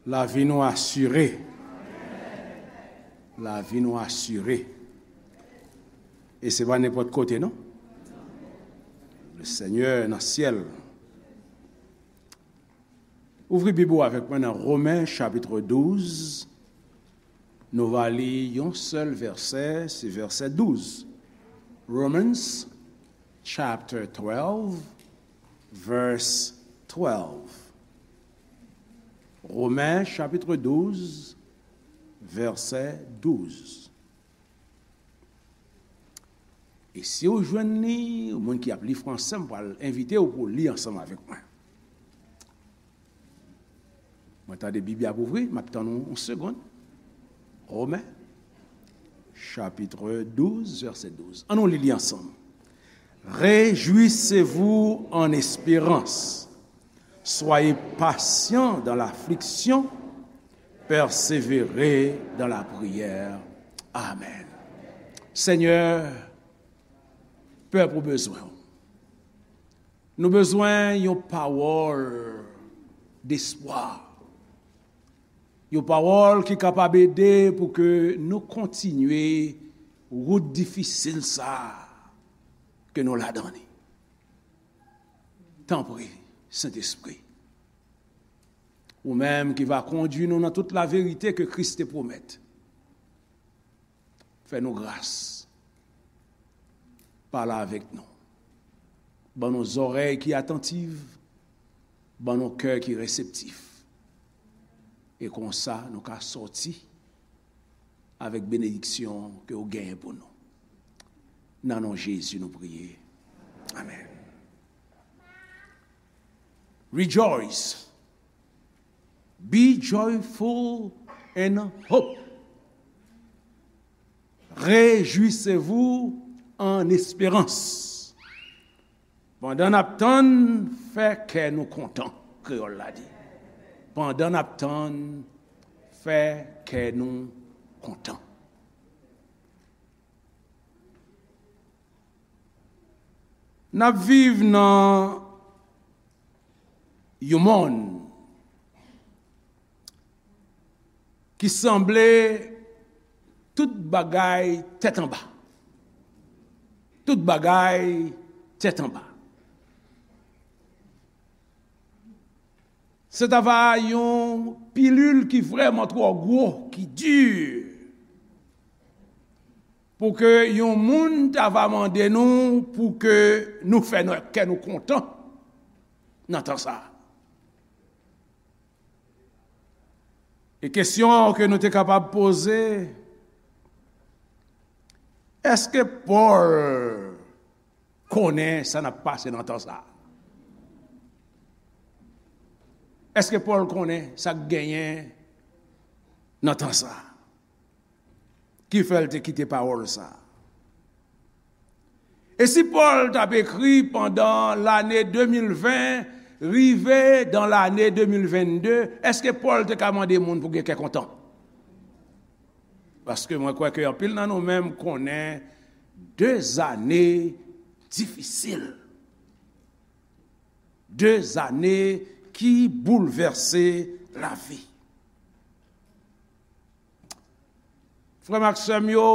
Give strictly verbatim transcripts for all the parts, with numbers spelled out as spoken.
Lavi nou asire. Lavi nou asire. E se pa nenpòt kote, non. Le Senyè nan syèl. Ouvri Bib ou avèk mwen nan Romen, chapit douz. Nou va li yon sèl vèsè, se vèsè douz. Romans, chapter twelve, verse twelve. Romen, chapit douz, vèsè douz. E si w jwenn li, ou moun ki ap li fransè, m pral envite w pou w li ansanm avèk mwen. Mwen tande Bib la ap ouvri, m ap tann yon, yon segonn. Romen, chapit douz, vèsè douz. Ann nou li li ansanm. Réjouissez-vous en espérance. Soyez patients dans l'affliction. Persévérez dans la prière. Amen. Senyè, pèp ou bezwen w. Nou bezwen yon pawòl despwa. Yon pawòl ki kapab ede pou ke nou kontinye wout difisil sa a ke nou ladan li. Tanpri, Sentespri, ou menm ki va kondui nou nan tout laverite ke Kris te pwomèt, fè nou gras. Pale avèk nou. Ban nou zòrèy ki atantiv. Ban nou kè ki reseptif. E konsa, nou ka sòti avèk benediksyon ke w genyen pou nou. Nan non Jezi, nou priye. Amèn. Rejoice. Be joyful in hope. Réjouissez-vous en espérance. Pandan n ap tann, fè kè nou kontan, kreyòl la di. Pandan n ap tann, fè kè nou kontan. N ap viv nan yon monn ki sanble tout bagay tèt anba. Tout bagay tèt anba. Se ta va yon pilil ki vrèman twò gwo, ki di, pou ke yon moun ta va mande nou pou ke nou fè nou, kè nou kontan nan tan sa a. E kesyon ke nou te kapab poze, èske Pòl konnen sa n ap pase nan tan sa a? Èske Pòl konnen sa k genyen nan tan sa a? Ki fè l te kite pawòl sa a? E si Pòl t ap ekri pandan lane de mil ven, rive dan lane de mil venn de, èske Pòl te ka mande moun pou gen kè kontan? Paske mwen kwè ke anpil nan nou menm konnen de zane difisil. De zane ki boulvèse lavi. Frè m ak sè m yo,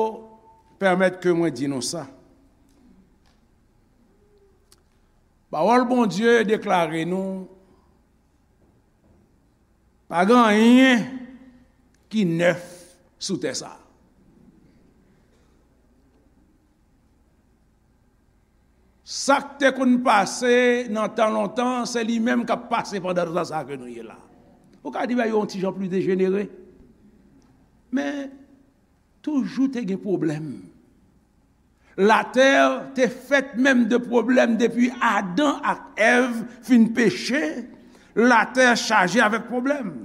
pèmèt ke mwen di nou sa. Pawòl Bondye deklare nou, pa gen anyen ki nèf sou tè sa a. Sa k te konn pase nan tan lontan, se li menm k ap pase pandan tan sa a ke nou ye la. Ou ka di bagay yo yon ti jan pli dejenere. Men, toujou te gen pwoblèm. Latè te fèt menm de pwoblèm depi Adan ak Èv fin peche. Latè chaje avèk pwoblèm.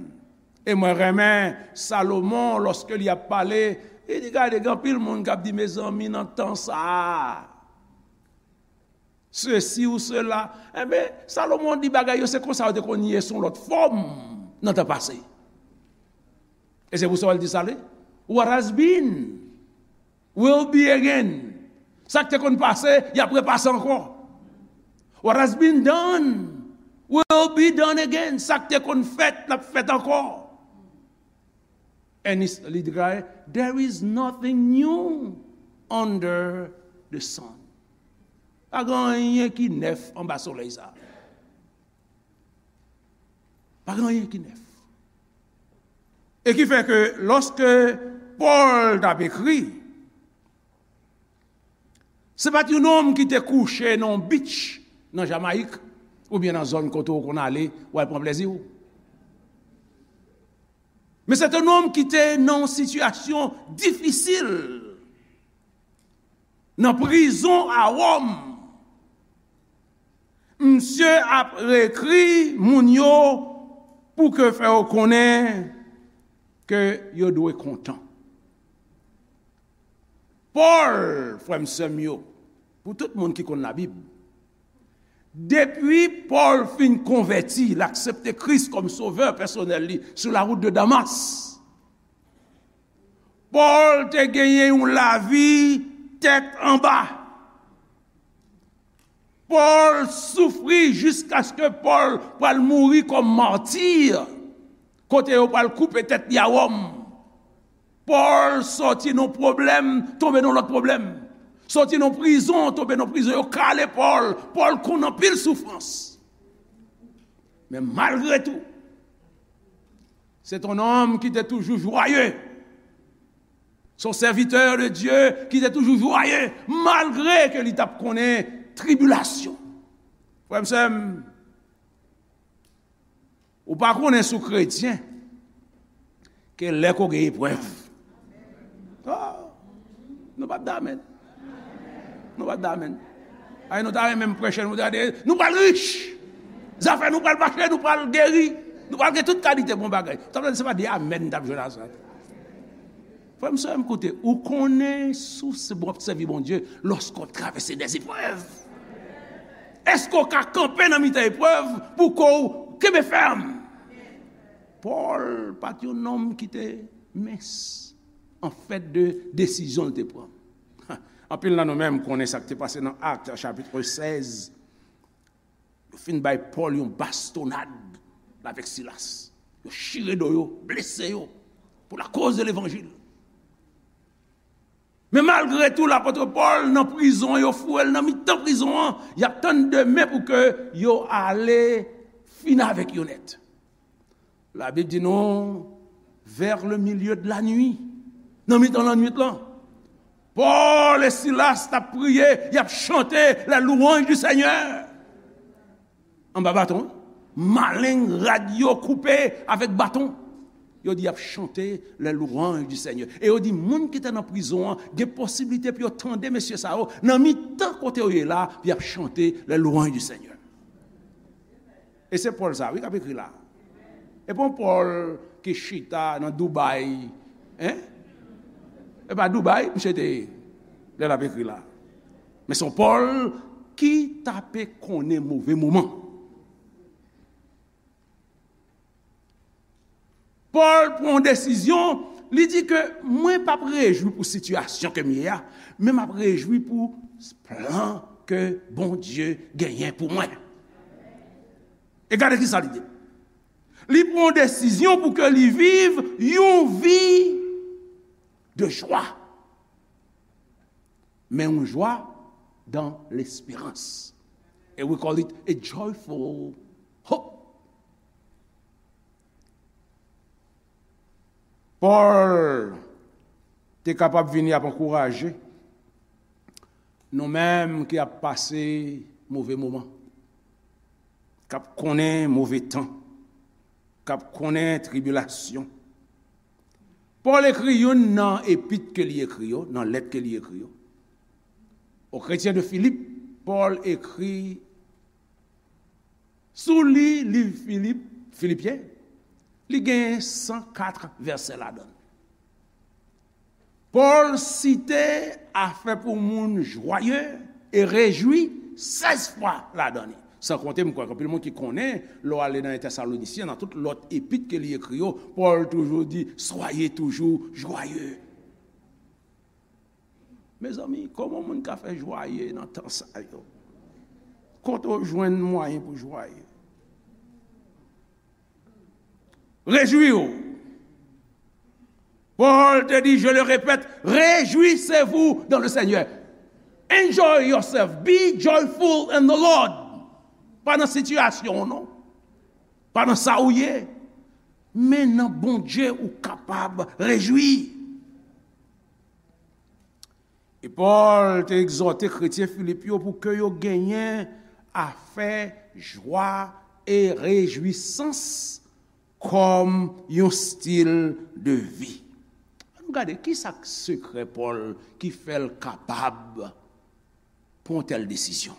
E mwen renmen Salomon, lòske li ap pale, li di, gade, gen anpil moun k ap di, mezanmi, nan tan sa a, sesi ou sela. Enben, Salomon di bagay yo, se konsa yo te konn ye sou lòt fòm nan tan pase. E se pou sa w al di sa li, what has been will be again. Sa k te konn pase, y ap repase ankò. What has been done will be done again. Sa k te konn fèt, l ap fèt ankò. And it's, li deklare, "There is nothing new under the sun." Pa gen anyen ki nèf anba solèy sa. Pa gen anyen ki nèf. E ki fè ke lòske Pòl t ap ekri, se pa t yon nonm ki te kouche nan yon beach nan Jamayik, oubyen nan zòn kote w konn ale, w al pran plezi w. Men se te yon nonm ki te nan yon sitiyasyon difisil. Nan prizon a Wòm, misye ap ekri moun yo pou ke fè yo konnen ke yo dwe kontan. Pòl, frè m, sè m yo, pou tout moun ki konn Labib, depi Pòl fin konvèti, l aksepte Kris kòm sovè pèsonèl li sou la wout de Damas, Pòl te genyen yon lavi tèt anba. Pòl soufri jiskaske Pòl pral mouri kòm mati, kote yo pral koupe tèt li a Wòm. Pòl sòti nan pwoblèm, tonbe nan lòt pwoblèm. Sòti nan prizon, tonbe nan prizon, yo kale Pòl. Pòl konn anpil soufrans. Men malgre tou, se te yon nonm ki te toujou jwaye. Se yon sèvitè de Dye ki te toujou jwaye, malgre ke li t ap konnen tribilasyon. Frè m, sè m, ou pa konnen si w kretyen, ke lè ke w gen eprèv. Ah, nou p ap di amèn. Nou p ap di amèn. Ay, nou ta renmen m preche, nou ta di, nou pral rich. Zafè nou pral mache, nou pral geri. Nou pral gen tout kalite bon bagay. Sa vle di, se pa de amèn n t ap jwenn a sa. Frè m, sè m, koute, ou konnen si w se bon, w ap sèvi Bondye lòske w ap travèse dèzeprèv. Èske w ka kanpe nan mitan eprèv pou ke w kenbe fèm? Pòl pa t yon nonm ki te mens an fèt de desizyon l te pran. Anpil nan nou menm konnen sa k te pase nan Actes chapitre seize. Yo fin bay Pòl yon bastonad, l avèk Silas. Yo chire do yo, blese yo, pou lakoz de levanjil. Men malgre tou, lapòt Pòl nan prizon, yo foure l nan mitan prizon an, y ap tann demen pou ke yo ale fini avèk yo nèt. Labib di nou, vers le milieu de la nuit, nan mitan lannwit lan, Pòl e Silas t ap priye, y ap chante les louanges du Seigneur. Anba baton, wi. Maleng rad yo koupe avèk baton. Yo di y ap chante les louanges du Seigneur. E yo di moun ki te nan prizon an gen posiblite pou yo tande mesye sa yo nan mitan kote yo ye la, pou y ap chante les louanges du Seigneur. E se Pòl sa, wi, k ap ekri la. E pa yon Pòl ki chita nan Dubai, en? E pa Dubai misye te ye lè l ap ekri la. Men se yon Pòl ki t ape konnen move moman. Pòl pran yon desizyon, li di ke mwen p ap rejwi pou sitiyasyon ke m ye a, men m ap rejwi pou plan ke Bondye genyen pou mwen. E gade ki sa li di. Li pran yon desizyon pou ke li viv yon vi de jwa. Men yon jwa dans l'espérance. And we call it a joyful hope. Pòl te kapab vini ap ankouraje nou menm ki ap pase move moman, k ap konnen move tan, k ap konnen tribilasyon. Pòl ekri youn nan epit ke li ekri yo, nan lèt ke li ekri yo. O kretyen de Filip, Pòl ekri, si w li liv Filip, Filipyen, li gen san kat vèsè ladan l. Pòl site afè pou moun jwaye e rejwi sèz fwa ladan li. San konte, m kwè gen anpil moun ki konnen, lè w ale nan Tèsalonisyen, nan tout lòt epit ke li ekri yo, Pòl toujou di, soyez toujours joyeux. Mezanmi, kòman moun ka fè jwaye nan tan sa yo? Kote w jwenn mwayen pou jwaye? Rejwi w. Paul te di, je le répète, réjouissez-vous dans le Seigneur. Enjoy yourself. Be joyful in the Lord. Pa nan sitiyasyon w non. Pa nan sa ou ye. Men nan Bondye ou kapab rejwi. E Pòl te egzòte kretyen Filip yo pou ke yo genyen afè jwa e rejwisans kòm yon stil de vi. Ann nou gade, ki sa k sekrè Pòl ki fè l kapab pran tèl desizyon?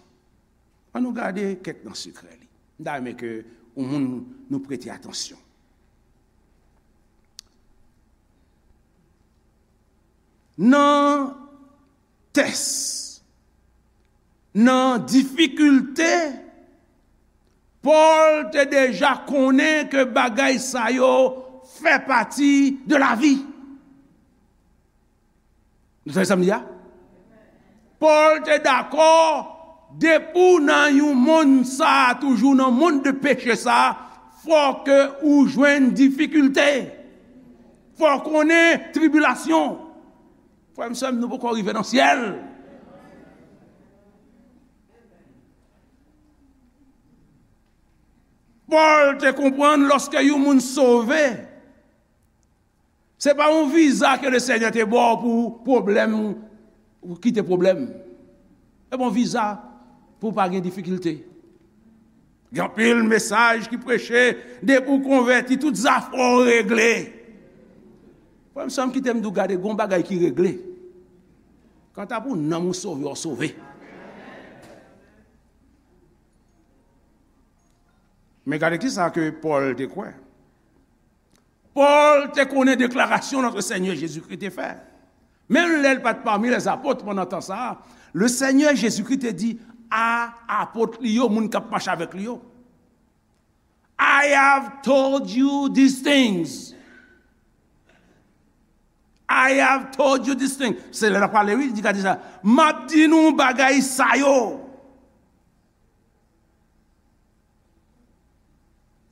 Ann nou gade kèk nan sekrè li. M ta renmen ke yon moun nou prete atansyon. Nan tès, nan difikilte, Pòl te deja konnen ke bagay sa yo fè pati de lavi. Nou tande sa m di a? Pòl te dakò, depi w nan yon monn sa a, toujou nan monn de peche sa a, fò ke ou jwenn difikilte. Fò w konnen tribilasyon. Frè m, sè m, nou poko rive nan syèl. Pòl te konprann lòske yon moun sove, se pa yon viza ke Lesenyè te ba w pou pwoblèm, ou kite pwoblèm. Se pa yon viza pou w pa gen difikilte. Gen anpil mesaj ki preche, depi w konvèti, tout zafè w regle. Frè m, sè m, kite m di w, gade, gen yon bagay ki regle. Kanta pou nanm ou sove, w sove. Men gade kisa ke Pòl te kwè. Pòl te konnen deklarasyon Notre Seigneur Jésus-Christ te fè. Menm lè l pa t pami lèzapot pandan tan sa a, Lesenyè Jezikri te di a apot li yo, moun k ap mache avèk li yo, I have told you these things. I have told you these things. Se lè l ap pale, wi, li di, gade sa. M ap di nou bagay sa yo.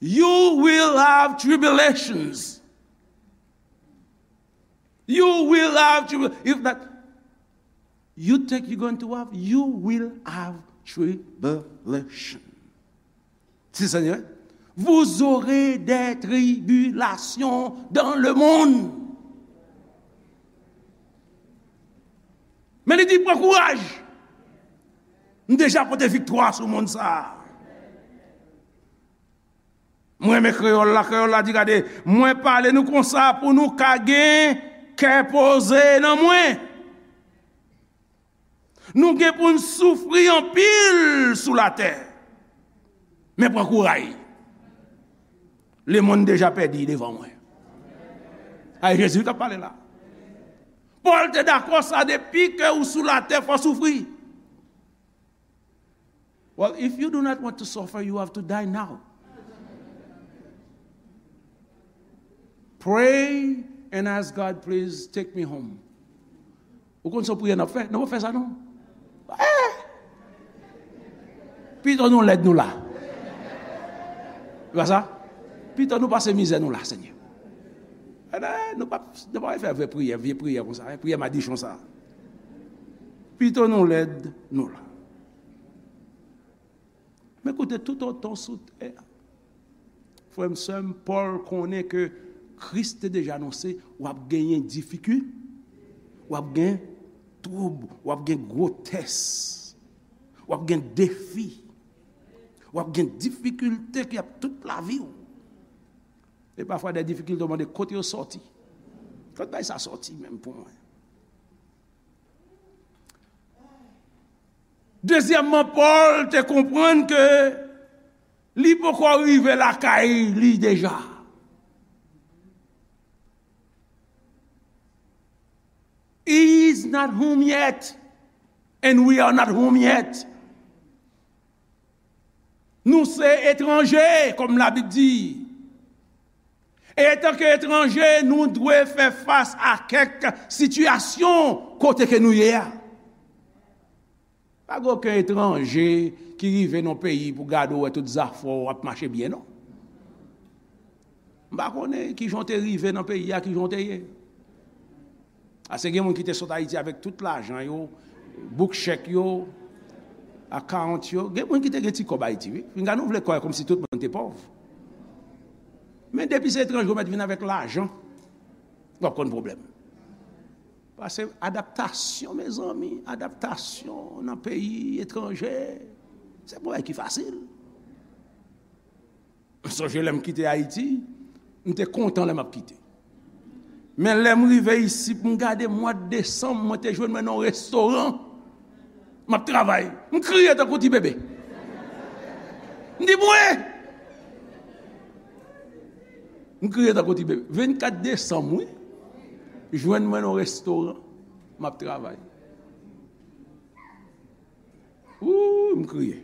You will have tribulations. You will have tribulation. If not, you think you're going to have, you will have tribulation. Si Senyè, vous aurez des tribulations dans le monde. Men li di, pran kouraj. M deja pote viktwa sou monn sa a. Mwen renmen kreyòl la, kreyòl la di, gade, mwen pale nou konsa pou nou ka gen kè poze nan mwen. Nou gen pou n soufri anpil sou latè. Men pran kouray. Lemonn deja pèdi devan mwen. A, e Jezi k ap pale la. Pòl te dakò sa, depi ke ou sou latè, fò w soufri. Well, if you do not want to suffer, you have to die now. Pray and ask God, please take me home. Ou konn se yon priyè n ap fè? Non, pa fè sa non. Eh! Pito nou lèd nou la. Se pa sa? Pito nou pase mizè nou la, Senyè. Eh, nou pa, nou pa fè vye priyè, vye priyè konsa, eh, priyè madichon sa. Pito nou lèd nou la. Men koute, toutotan w sou tè a, frè m, sè m, Pòl konnen ke Kris te deja anonse w ap genyen difikil, w ap gen twoub, w ap gen gwotès, w ap gen defi, w ap gen difikilte ki ap tout lavi w. E pafwa de difikilte w mande kote yo sòti. Kote bay sa sòti menm pou mwen? Dezyèmman, Pòl te konprann ke li poko rive lakay li deja. He is not home yet, and we are not home yet. Nou se etranje, kòm Labib di. E antanke etranje, nou dwe fè fas a kèk sitiyasyon kote ke nou ye a. Pa gen okenn etranje ki rive nan peyi pou gade w wè tout zafè w ap mache byen, non. M pa konnen kijan w te rive nan peyi a, kijan w te ye. Ase gen moun ki te sot Ayiti avèk tout lajan yo, bouk chèk yo, account yo. Gen moun ki te gen ti kòb Ayiti, wi. Pinga nou vle kwè kòmsi tout moun te pòv. Men depi se etranje ou mèt vin avèk lajan, w ap konn pwoblèm. Paske adaptasyon, mezanmi, adaptasyon nan peyi etranje, se pa yon bagay ki fasil. M sonje lè m kite Ayiti, m te kontan lè m ap kite. Men lè m rive isit, m gade mwa desanm, mwen te jwenn mwen nan yon restoran. M ap travay. M kriye tankou ti bebe. M di, "Mwen!" M kriye tankou ti bebe. Vennkat desanm, wi. Jwenn mwen nan yon restoran. M ap travay. Wouy, m kriye.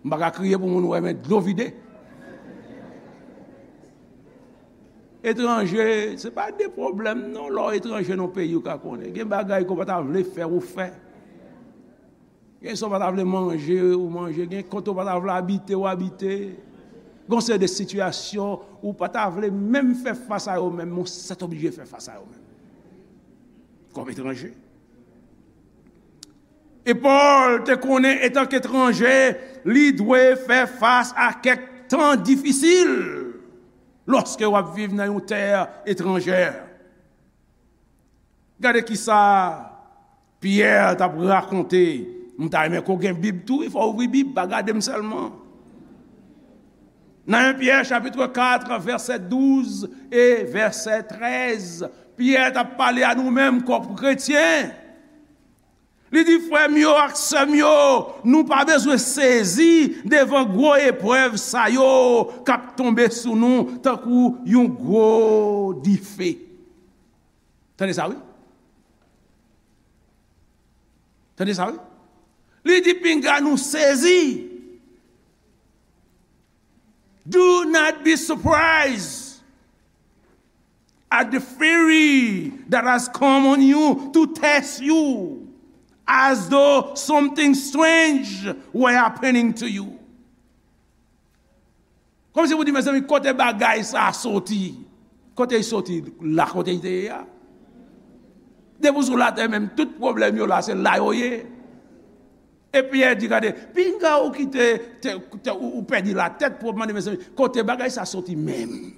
M pa ka kriye pou moun wè, men dlo vide. Etranje, se pa de pwoblèm, non, lè w etranje nan peyi ou ka konnen. Gen bagay ke w pa ta vle fè, ou fè. Gen sa w pa ta vle manje, ou manje. Gen kote w pa ta vle abite, ou abite. Gen yon seri de sitiyasyon ou pa ta vle menm fè fas a yo menm, men w sètoblije fè fas a yo menm. Kòm etranje. E Pòl te konnen, etanke etranje, li dwe fè fas a kèk tan difisil lòske w ap viv nan yon tè etranjè. Gade kisa Pyè t ap rakonte. M ta renmen ke w gen Bib tou, wi, fò w ouvri Bib, pa gade m sèlman. Nan en Pyè chapit kat, vèsè douz e vèsè trèz, Pyè t ap pale a nou menm kòm kretyen. Li di, "Frè m yo ak sè m yo, nou pa bezwen sezi devan gwo eprèv sa yo k ap tonbe sou nou tankou yon gwo dife." Tande sa, wi. Tande sa, wi. Li di, "Pinga nou sezi." Do not be surprised at the fury that has come on you to test you, as though something strange were happening to you. Kòmsi pou di, "Mezanmi, kote bagay sa a soti?" Kote l soti? La kote l te ye a. Depi w sou latè menm, tout pwoblèm yo la, se la yo ye. Epi Pyè di, "Gade, pinga ou ki te, te, te, ou, ou pèdi latèt pou w ap mande, mezanmi, kote bagay sa soti menm?"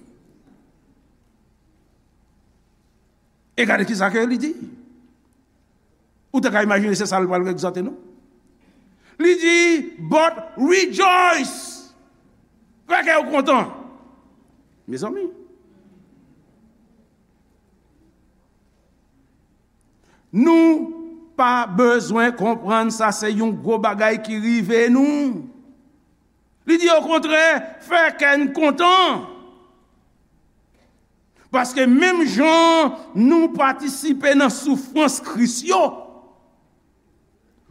E gade kisa ke li di. Ou te ka imajine se sa l pral egzòte nou. Li di, "But rejoice." Fè kè w kontan. Mezanmi. Nou pa bezwen konprann sa se yon gwo bagay ki rive nou. Li di, okontrè, fè kè n kontan. Paske menm jan nou patisipe nan soufrans Kris yo,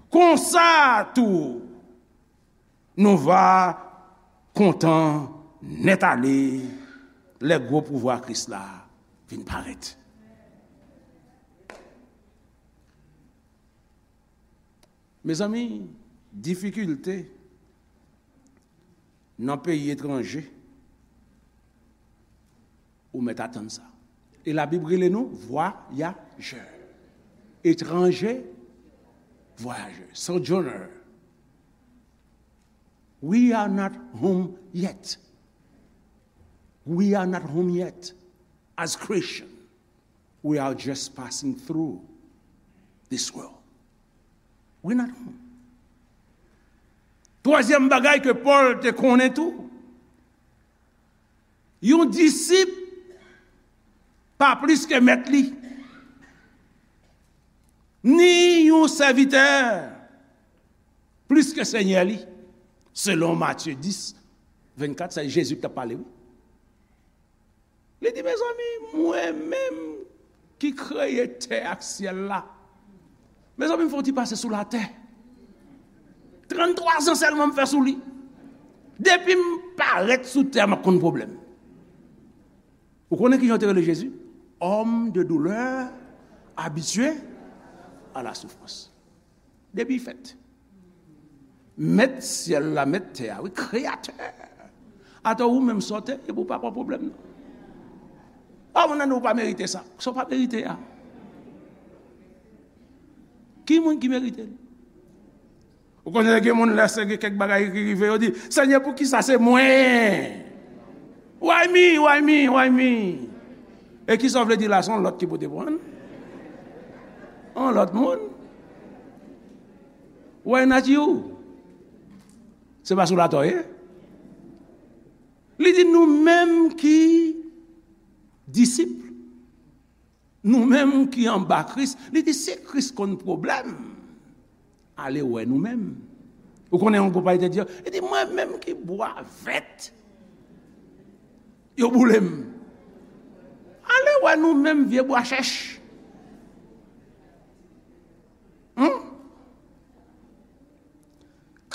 konsa tou, nou va kontan nèt ale lè gwo pouvwa Kris la vin parèt. Mezanmi, difikilte nan peyi etranje, ou mèt atann sa. E Labib rele nou vwayajè. Etranje, vwayajè. Sojourner. We are not home yet. We are not home yet. As Christian, we are just passing through this world. We not home. Twazyèm bagay ke Pòl te konnen tou, yon disip pa plis ke mèt li, ni yon sèvitè plis ke senyè li, selon Matye dis, vennkat, se Jezi ki t ap pale, wi. Li di, mezanmi, mwen menm ki kreye tè ak syèl la, mezanmi, m fè yon ti pase sou latè. Tranntwa zan sèlman m fè sou li. Depi m parèt sou tè a, m ap konn pwoblèm. Ou konnen kijan yo te rele Jezi? Homme de douleur, habitué à la souffrance. Depi fèt. Mèt syèl la, mèt tè a, wi, kreyatè. Atò ou menm sa w te ye pou w pa pran pwoblèm nan. A, moun nan di w pa merite sa. Sa w pa merite a. Ki moun ki merite l? Ou konnen gen moun lè se gen kèk bagay ki rive, yo di, "Senyè, poukisa se mwen? Why me? Why me? Why me?" E kisa w vle di la, se yon lòt ki pote pran? Yon lòt moun? Why not you? Se pa sou latè w ye? Li di nou menm ki disip, nou menm ki anba Kris, li di si Kris konn pwoblèm, ale wè nou menm. Ou konnen yon gwoup ayisyen te di, li di mwen menm ki bwa vèt, yo boule m. Ale wè nou menm vye bwa chèch. Hmm?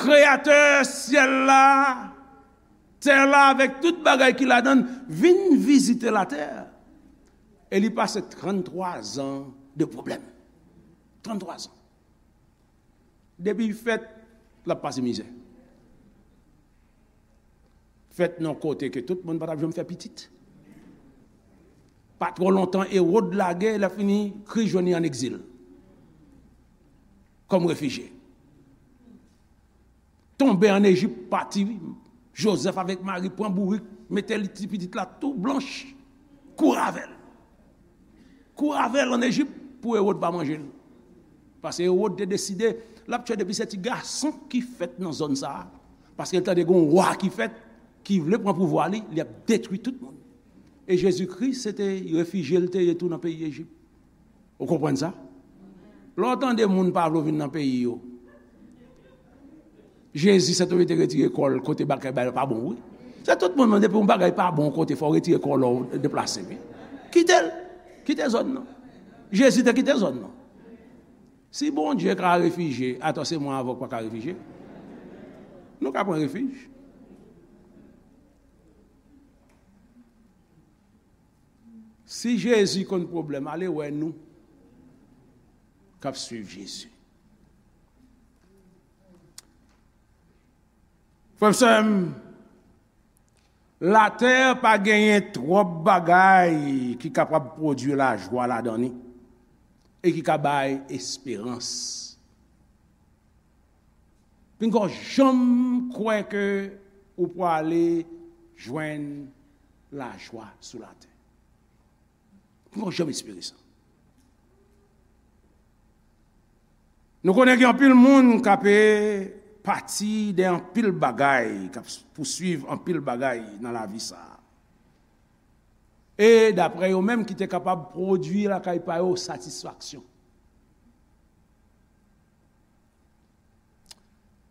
Kreyatè syèl la, tè la, avèk tout bagay ki ladan l, vin vizite latè. E li pase tranntwa zan de pwoblèm. Tranntwa zan. Depi fèt, l ap pase mizè. Fèt nan kote ke tout moun pa t ap janm fè pitit. Pa twò lontan, Ewòd lage, lè fini, Kris jwenn li an egzil. Kòm refijye. Tonbe an Ejip, pati, Jozèf avèk Mari pran bourik, mete li ti pitit la tou blanch, kouri avè l. Kouri avè l an Ejip pou Ewòd pa manje l. Paske Ewòd te deside l ap tchwe depi se ti gason ki fèt nan zòn sa a. Paske l tande gen yon wa ki fèt, ki vle pran pouvwa li, li ap detwi tout moun. E Jezikri, se te refijye l te ye tou nan peyi Ejip. Ou konprann sa? Lè w tande moun pa vle w vin nan peyi yo, Jezi se tou li te retire kò l kote bagay pa bon, wi. Se tout moun, men depi yon bagay pa bon kote, fò w retire kò w lè w deplase, wi. Kite l. Kite zòn nan. Jezi te kite zòn nan. Si Bondye ka refijye, atò se mwen avè w k pa ka refijye? Nou ka pran refij. Si Jezi konn pwoblèm, ale wè nou k ap swiv Jezi. Frè m, sè m, latè pa genyen twòp bagay ki kapab pwodui lajwa ladan li e ki ka bay esperans. Pinga w janm kwè ke ou prale jwenn lajwa sou latè. Pinga w janm espere sa. Nou konnen gen anpil moun k ape pati de anpil bagay, k ap pouswiv anpil bagay nan lavi sa a. E daprè yo menm ki te kapab pwodui lakay pa yo satisfaksyon.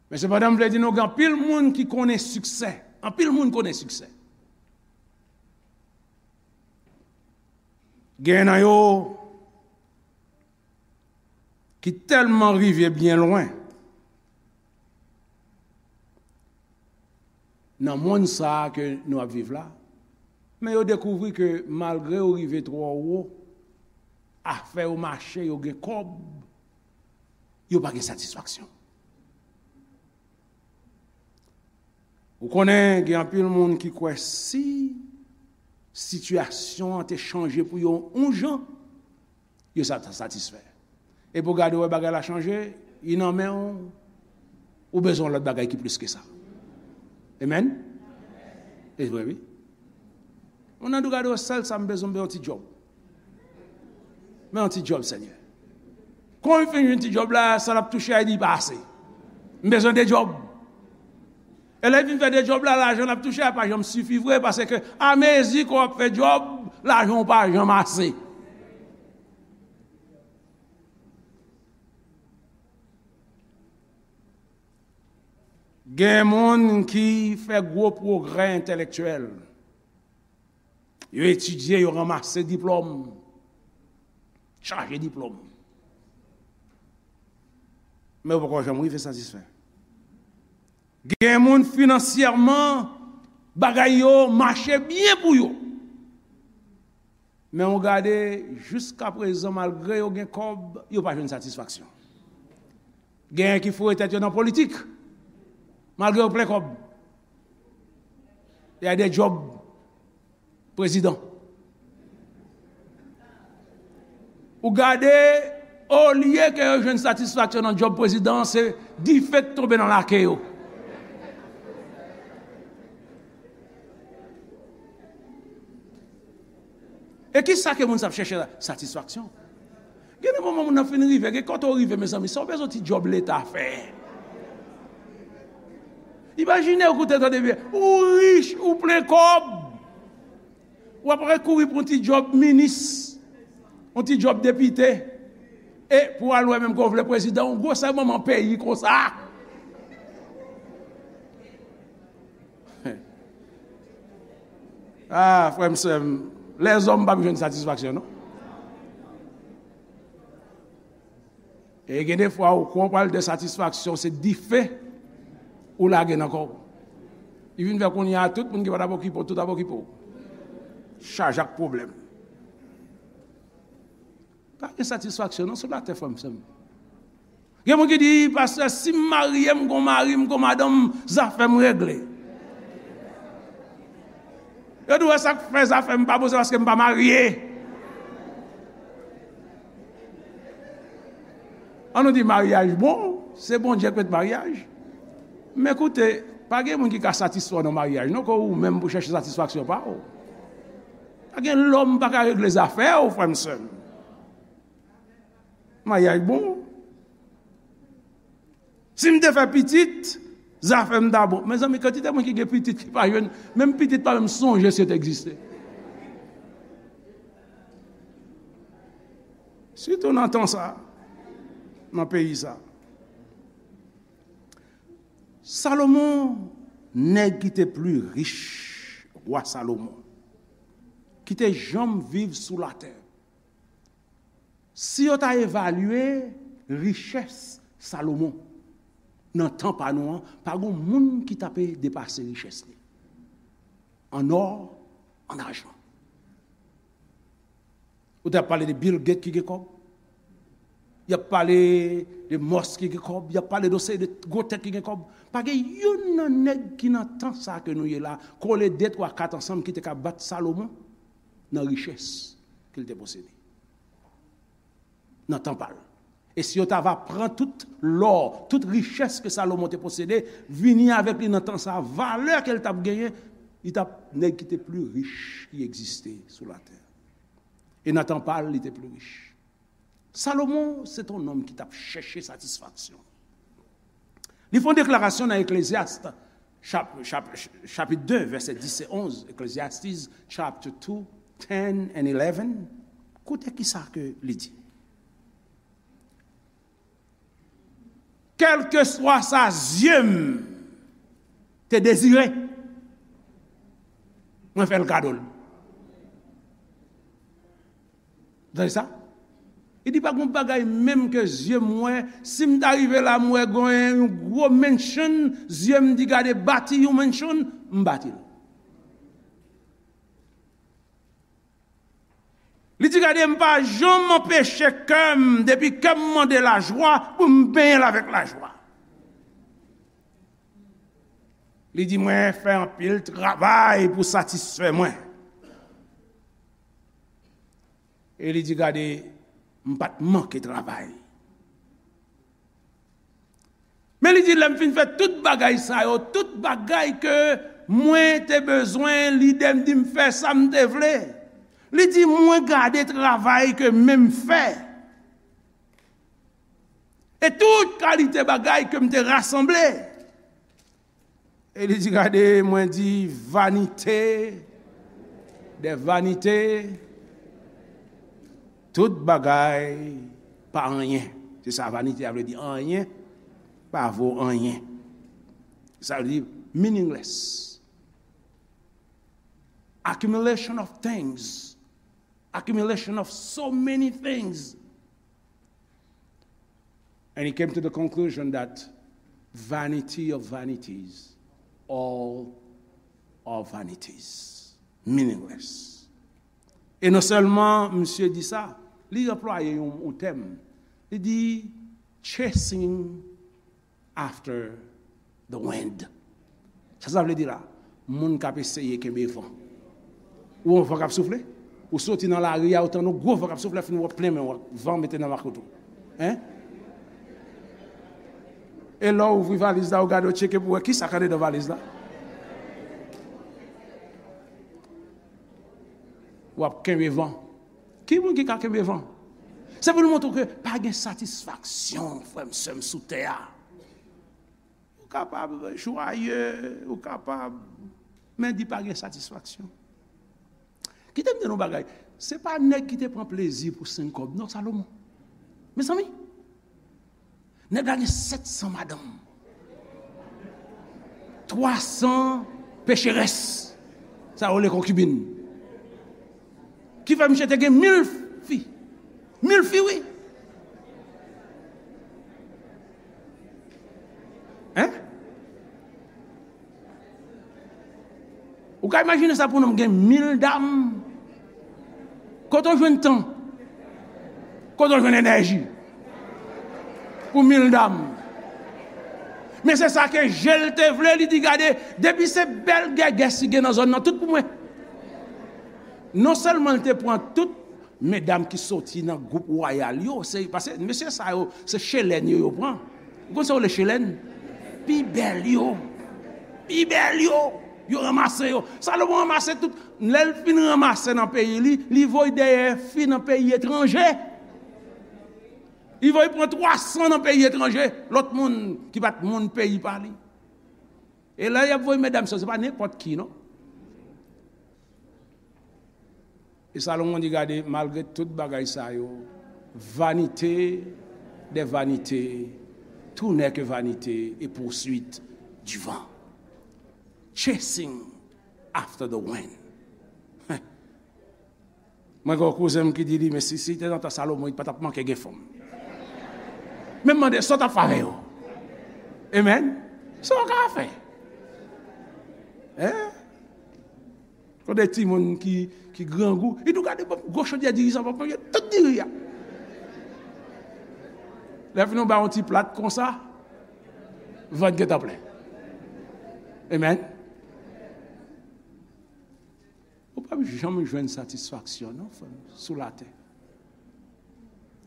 Men sepandan, m vle di nou, gen anpil moun ki konnen siksè. Anpil moun konnen siksè. Gen nan yo ki tèlman rive byen lwen nan monn sa a ke nou ap viv la, men yo dekouvri ke malgre yo rive twò wo, afè yo mache, yo gen kòb, yo pa gen satisfaksyon. Ou konnen, gen anpil moun ki kwè si sitiyasyon an te chanje pou yo yon jan, yo sa ta satisfè. Epi w gade w wè bagay la chanje, li nan men w, ou bezwen yon lòt bagay ki plis ke sa. Amen? E vre, wi. Moun nan di w gade w sèl sa m bezwen, m bezwen yon ti djòb. Men yon ti djòb, Senyè. Kon li fin jwenn ti djòb la, sa l ap touche a, li di pa ase. M bezwen de djòb. E lè l fin fè de djòb la, lajan l ap touche a pa janm sifi vre, paske amezi ke w ap fè djòb, lajan w pa janm ase. Gen moun ki fè gwo pwogrè entèlektyèl. Yo etidye, yo ranmase diplòm, chaje diplòm. Men yo poko janm rive satisfè. Gen moun finansyèman, bagay yo mache byen pou yo. Men ou gade, jiskaprezan, malgre yo gen kòb, yo pa jwenn satisfaksyon. Genyen ki foure tèt yo nan politik, malgre yo plen kòb. Y a de djòb prezidan. Ou gade, olye ke yo jwenn satisfaksyon nan djòb prezidan an, se dife k tonbe nan lake yo. E ki sa ke moun sa ap chèche la? Satisfaksyon. Gen de moman moun nan fin rive, gen kote w rive, mezanmi, sa w bezwen ti djòb leta fè. Imajine w koute tande byen, ou rich, ou plen kòb. W ap kouri pou yon ti djòb minis, yon ti djòb depite, e pou al wè menm ke w vle prezidan, yon gwosè manman peyi konsa. Ah, frè m, sè m, lèzòm p ap jwenn satisfaksyon, non. E gen de fwa, ou kwè w pral de satisfaksyon, se dife ou lage nan kò w. Li vin fè kounye a, tout moun ki pa t ap okipe w, tout ap okipe w. Chaje ak pwoblèm. Pa gen satisfaksyon, non, sou latè, frè m, sè m. Gen moun ki di, pastè, si m marye, m gon mari, m gon madanm, zafè m regle. Yo di, w wè sa k fè zafè m pa bon, se paske m pa marye. An nou di maryaj bon, se Bondye k met maryaj. Men koute, pa gen moun ki ka satisfè w nan maryaj, non, ke ou menm pou chèche satisfaksyon pa w. Pa gen lòm pa ka regle zafè w, frè m, sè m. Maryaj bon. Si m te fè pitit, zafè m ta bon. Mezanmi, kantite moun ki gen pitit ki pa jwenn, menm pitit pa menm sonje si yo te egziste. Sitou nan tan sa, nan peyi sa. Salomon, nèg ki te pli rich, wa Salomon, ki te janm viv sou latè. Si yo ta evalye richès Salomon nan tan pa nou an, pa gon moun ki ta pe depase richès li an ò, an ajan. Ou t ap pale de Bill Gates ki gen kòb. Y ap pale de Musk ki gen kòb. Y ap pale de yon seri de gwo tèt ki gen kòb. Pa gen youn nan nèg ki nan tan sa ke nou ye la, kole de, twa, kat ansanm ki te ka bat Salomon nan richès ke l te posede. Nan tan pa l. E si yo ta va pran tout lò, tout richès ke Salomon te posede, vini avèk li nan tan sa, valè ke l t ap genyen, li t ap nèg ki te pli rich ki egziste sou latè. E nan tan pa l, li te pli rich. Salomon, se t on nonm ki t ap chèche satisfaksyon. Li fè yon deklarasyon nan Eklezyas, chap-, chap-, chapit de, vèsè dis e onz, Ecclesiastes chapter two, ten and eleven. Koute ki sa ke li di. Kèlkeswa sa zye m te dezire, mwen fè l kado l. Tande sa? Li di, pa gen bagay menm ke zye m wè, si m ta rive la, m wè gen yon gwo mansion, zye m di, gade, bati yon mansion, m bati l. Li di, gade, m pa janm anpeche kè m, depi kè m mande lajwa, pou m benyen l avèk lajwa. Li di, mwen fè anpil travay pou satisfè mwen. E li di, gade, m pa t manke travay. Men li di, lè m fin fè tout bagay sa yo, tout bagay ke mwen te bezwen, lide m di m fè sa m te vle. Li di, mwen gade travay ke men m fè. E tout kalite bagay ke m te rasanble. E li di, gade, mwen di, vanite dè vanite, tout bagay pa anyen. Se sa vanite a vle di, anyen, pa vo anyen. Sa vle di meaningless. Accumulation of things. Accumulation of so many things. And he came to the conclusion that vanity of vanities, all are vanities, meaningless. E non sèlman misye di sa, li anplwaye yon, yon tèm. Li di, chasing after the wind. Sa sa vle di la? Moun k ap eseye kenbe van. Ou yon van k ap soufle? Ou soti nan lari a, ou tann yon gwo van k ap soufle, fin w ap plen men w, van mete nan makot ou. Hein? E lè w ouvri valiz la, ou gade, ou tcheke pou wè ki sa k anndan valiz la. W ap kenbe van. Ki moun ki ka kenbe van? Se pou l montre w ke pa gen satisfaksyon, frè m, sè m, sou tè a. Ou kapab jwaye, ou kapab, men di pa gen satisfaksyon. Kite m di nou bagay. Se pa nèg ki te pran plezi pou senk kòb, non, Salomon. Mezanmi, nèg la gen sèt san madanm, twa san pecherès, sa yo rele konkibin. Ki fè misye te gen mil fi. Mil fi, wi. Hein? Ou ka imajine sa pou nonm gen mil dam? Kote w jwenn tan? Kote w jwenn enèji? Pou mil dam. Men se sa ke je l te vle, li di, "Gade, depi se bèl gègès ki gen nan zòn nan, tout pou mwen." Non sèlman l te pran tout medam ki soti nan gwoup wayal yo, se, paske mesye sa yo, se chelèn yo, yo pran. Ou konn sa yo rele chelèn? Pi bèl yo. Pi bèl yo. Yo ranmase yo. Salomon ranmase tout. Lè l fin ranmase nan peyi li, li voye dèyè fi nan peyi etranje. Li voye pran twa san nan peyi etranje. Lòt moun ki pa t moun peyi pa li. E lè y ap voye medam sa yo, se pa nenpòt ki, non. E Salomon di, "Gade, malgre tout bagay sa yo, vanité des vanités, tout n'est que vanité et poursuite du vent. Chasing after the wind." Mwen gen yon kouzen m ki di li, "Men si, si te nan tan Salomon, li pa t ap manke gen fanm." Men m mande, "Sa w t ap fè avè yo?" Amen. Sa w ka fè? Hein? Kote timoun ki, ki grangou, li tou gade, bon, gwo chodyè diri sa, bon, yo tout diri a. Lè fini, w ba yon ti plat konsa, vant gentan plen. Amen. Ou p ap janm jwenn satisfaksyon, non, frè m, sou latè.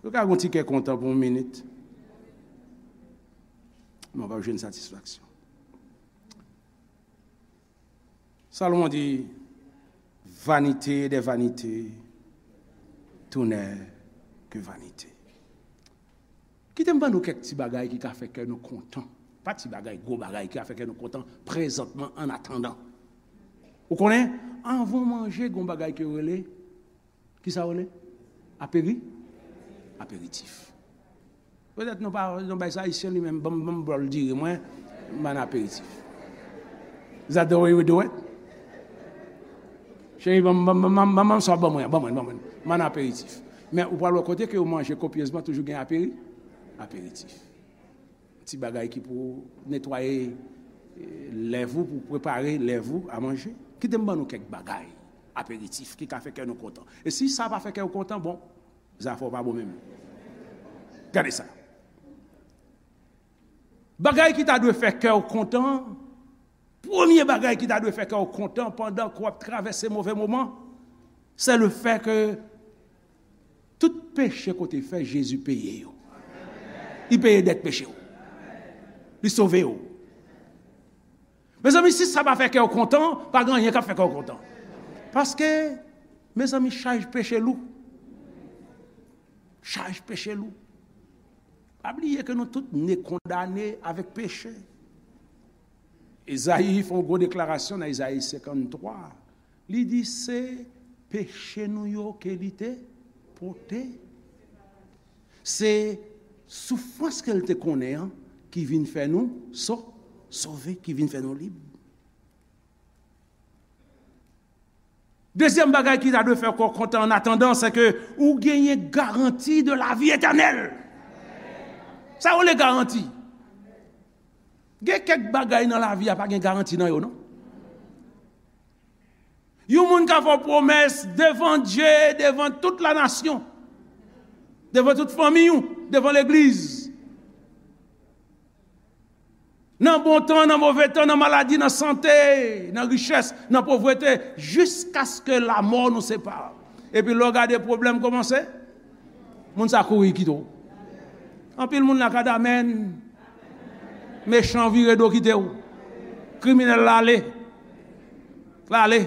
Ou ka gon ti kè kontan pou yon minit, men w p ap jwenn satisfaksyon. Salomon di, vanité des vanités, tout n'est que vanité. Kite m ban nou kèk ti bagay ki ka fè kè nou kontan. Pa ti bagay, gwo bagay ki ka fè kè nou kontan prezantman, an atandan. Ou konnen, anvan w manje, gon bagay ke yo rele, ki sa yo rele? Aperi? Aperitif. Petèt nou pa, nou bay sa Ayisyen li menm, ban m, ban m bòl diri mwen, ban n aperitif. Is that the way we do it? Cheri, ban m, ban m, ban m, ban m, ban m sa w ban mwen, ban mwen, ban mwen. Ban n aperitif. Men ou pral wè kote ke yo manje kopyezman, toujou gen aperi-, aperitif. Ti bagay ki pou netwaye, eh, lèv ou, pou prepare lèv ou a manje. Kite m ban nou kèk bagay, aperitif, ki ka fè kè nou kontan. E si sa pa fè kè w kontan, bon, zafè w pa bon menm. Gade sa. Bagay ki ta dwe fè kè w kontan, premye bagay ki ta dwe fè kè w kontan pandan ke w ap travèse move moman, se le fè ke tout peche ke w te fè, Jezi peye yo. Li peye dèt peche w. Li sove w. Mezanmi, si sa pa fè kè w kontan, pa gen anyen k ap fè kè w kontan. Paske, mezanmi, chaj peche lou. Chaj peche lou. Pa bliye ke nou tout ne kondane avèk peche. Ezayi fè yon gwo deklarasyon nan Ezayi senkanntwa. Li di se peche nou yo ke li te pote. Se soufrans ke l te konnen an ki vin fè nou so-, sove, ki vin fè nou lib. Dezyèm bagay ki ta dwe fè kè w kontan an atandan, se ke ou genyen garanti de lavi etènèl. Sa yo rele garanti. Gen kèk bagay nan lavi a pa gen garanti nan yo, non. Yon moun ka fè w pwomès devan Dye, devan tout lanasyon, devan tout fanmi w, devan legliz. Nan bon tan, nan move tan, nan maladi, nan sante, nan richès, nan povrete, jiskaske lamò nou separe. Epi lè w gade pwoblèm kòmanse, moun sa kouri kite w. Anpil moun la ka di amèn. Mechan vire do kite w. Kriminèl la ale. L ale.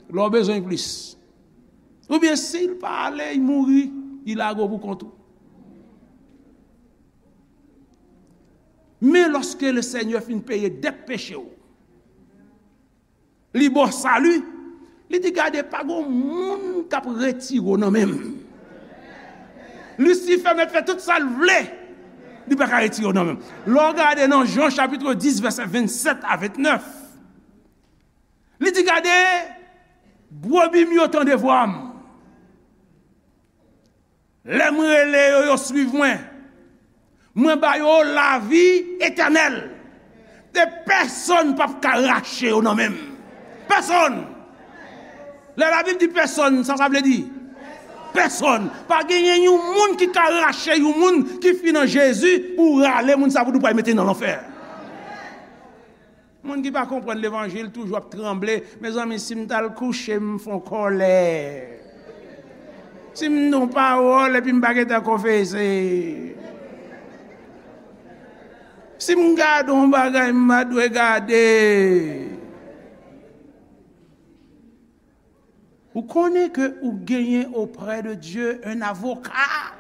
Lè w bezwen plis. Oubyen si l pa ale, li mouri, li lage w pou kont ou. Men lòske le Senyè fin peye dèt peche w, li ba w sali, li di, "Gade, pa gon moun k ap retire w nan men m." Lisifè mèt fè tout sa l vle, li pa ka retire w nan men m. Lè w gade nan Jan chapit dis, vèsè vennsèt a vennèf, li di, "Gade, brebi m yo tande vwa m. Lè m rele yo, yo suiv mwen. Mwen ba yo lavi etènèl. E pèsonn p ap ka rache yo nan men m." Pèsonn! Lè Labib di pèsonn, sa sa vle di? Pèsonn! Pa genyen yon moun ki ka rache yon moun ki fin nan Jezi pou rale moun sa pou di w pral mete nan lanfè. Moun ki pa konprann levanjil toujou ap tranble. Mezanmi, si m t al kouche, m fè w kòlè. Si m di w pawòl epi m pa gentan konfese. Si m gade yon bagay m pa dwe gade. Ou konnen ke ou genyen auprès de Dieu un avocat.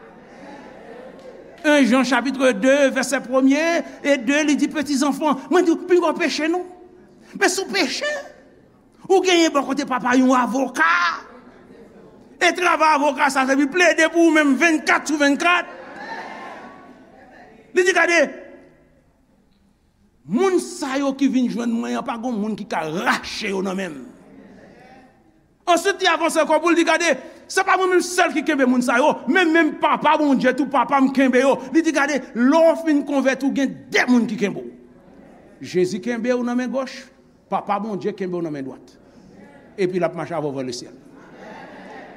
En Jan chapit de, vèsè premye e de, li di, "Peti zanfan, mwen di w, pinga w peche non. Men si w peche, ou genyen bò kote papa yon avoka. E travay avoka sa, se pou plede pou ou menm vennkat sou vennkat." Li di, "Gade, moun sa yo ki vin jwenn mwen an, pa gon moun ki ka rache yo nan men m." Answit, li avanse ankò pou l di, "Gade, se pa mwen menm sèl ki kenbe moun sa yo, men menm Papa Bondye tou, Papa m kenbe yo." Li di, "Gade, lè w fin konvèti, w gen de moun ki kenbe w. Jezi kenbe w nan men gòch, Papa Bondye kenbe w nan men dwat. Epi l ap mache avè w vè lesyèl."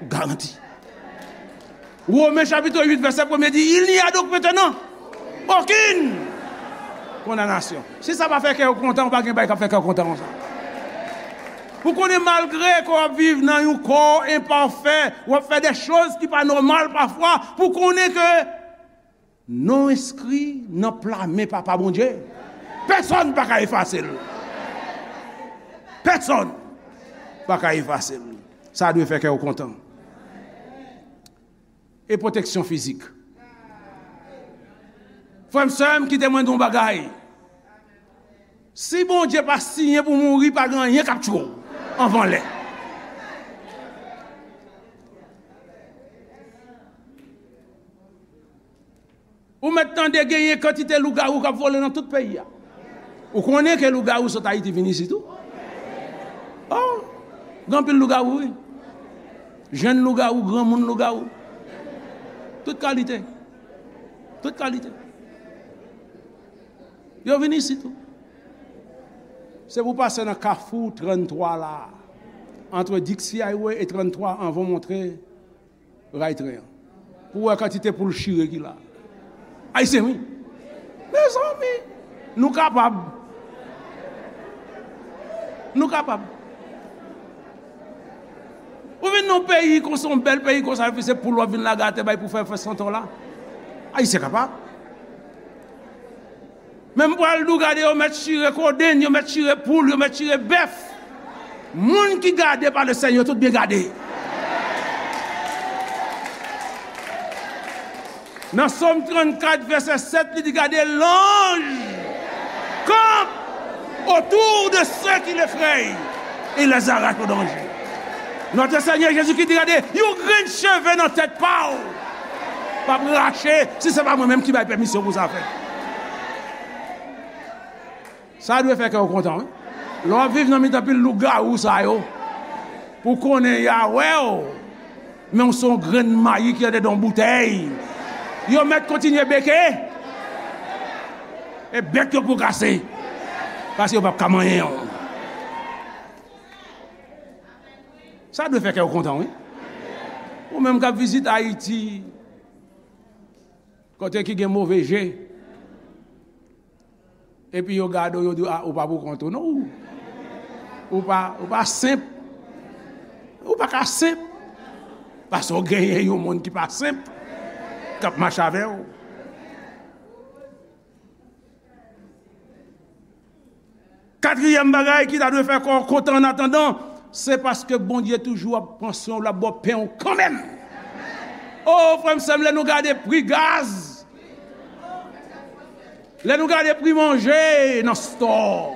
Garanti. Women chapit uit, vèsè premye di, "Il n'y a donc maintenant aucune condamnation." Si sa pa fè kè w kontan, ou pa gen bagay k ap fè kè w kontan konsa. Ou konnen, malgre ke w ap viv nan yon kò enpafè, w ap fè de choz ki pa nòmal pafwa, pou konnen ke non w enskri nan pla men Papa Bondye, pèsonn pa ka efase l. Pèsonn pa ka efase l. Sa dwe fè kè w kontan. E pwoteksyon fizik. Frè m, sè m, kite mwen di w yon bagay. Si Bondye pa siyen pou mouri, pa gen anyen k ap tchwe w anvan lè. Ou mèt tande genyen kantite lougawou k ap vole nan tout peyi a. Ou konnen ke lougawou sot Ayiti vin isit tou? Oh, gen anpil lougawou, wi. Jenn lougawou, granmoun lougawou. Tout kalite. Tout kalite. Yo vin isit tou. Se pou w pase nan kafou tranntwa la, antre Dixie Highway e tranntwa, anvan w montre ray tren an, pou w wè kantite poul chire ki la. Ayisyen, wi. Mezanmi, nou kapab. Nou kapab. Ou vin nan yon peyi konsa, yon bèl peyi konsa, epi se poul w ap vin lage atè bay pou fè, fè santon la. Ayisyen kapab. Men m pral di w, gade, yo mèt chire kodenn, yo mèt chire poul, yo mèt chire bèf. Moun ki gade pa le Senyè, tout byen gade. Nan Sòm trannkat, vèsè sèt, li di, "Gade, l'ange campe autour de ceux qui l'effrayent et les arrache au danger." Notre Seigneur Jésus-Christ di, "Gade, yon grenn cheve nan tèt pa w p ap rache si se pa mwen menm ki bay pèmisyon pou sa fèt." Sa dwe fè kè w kontan, wi. Lè w ap viv nan mitan pil lougawou sa yo, pou konnen y a wè w, men w se yon grenn mayi ki andedan yon boutèy. Yo mèt kontinye beke, e bèk yo pou kase, paske yo p ap ka manyen w. Sa dwe fè kè w kontan, wi. Ou menm k ap vizite Ayiti, kote ki gen move je, epi yo gade w, yo di w, "A, ou pa pou kont ou, non, ou, ou pa, ou pa senp. Ou pa ka senp." Paske w genyen yon moun ki pa senp, k ap mache avè w. Katriyèm bagay ki ta dwe fè kò w kontan annatandan, se paske Bondye toujou ap pran swen w, l ap ba w pen w kanmenm. O, frè m, sè m, lè nou gade pri gaz, lè nou gade pri manje nan stò,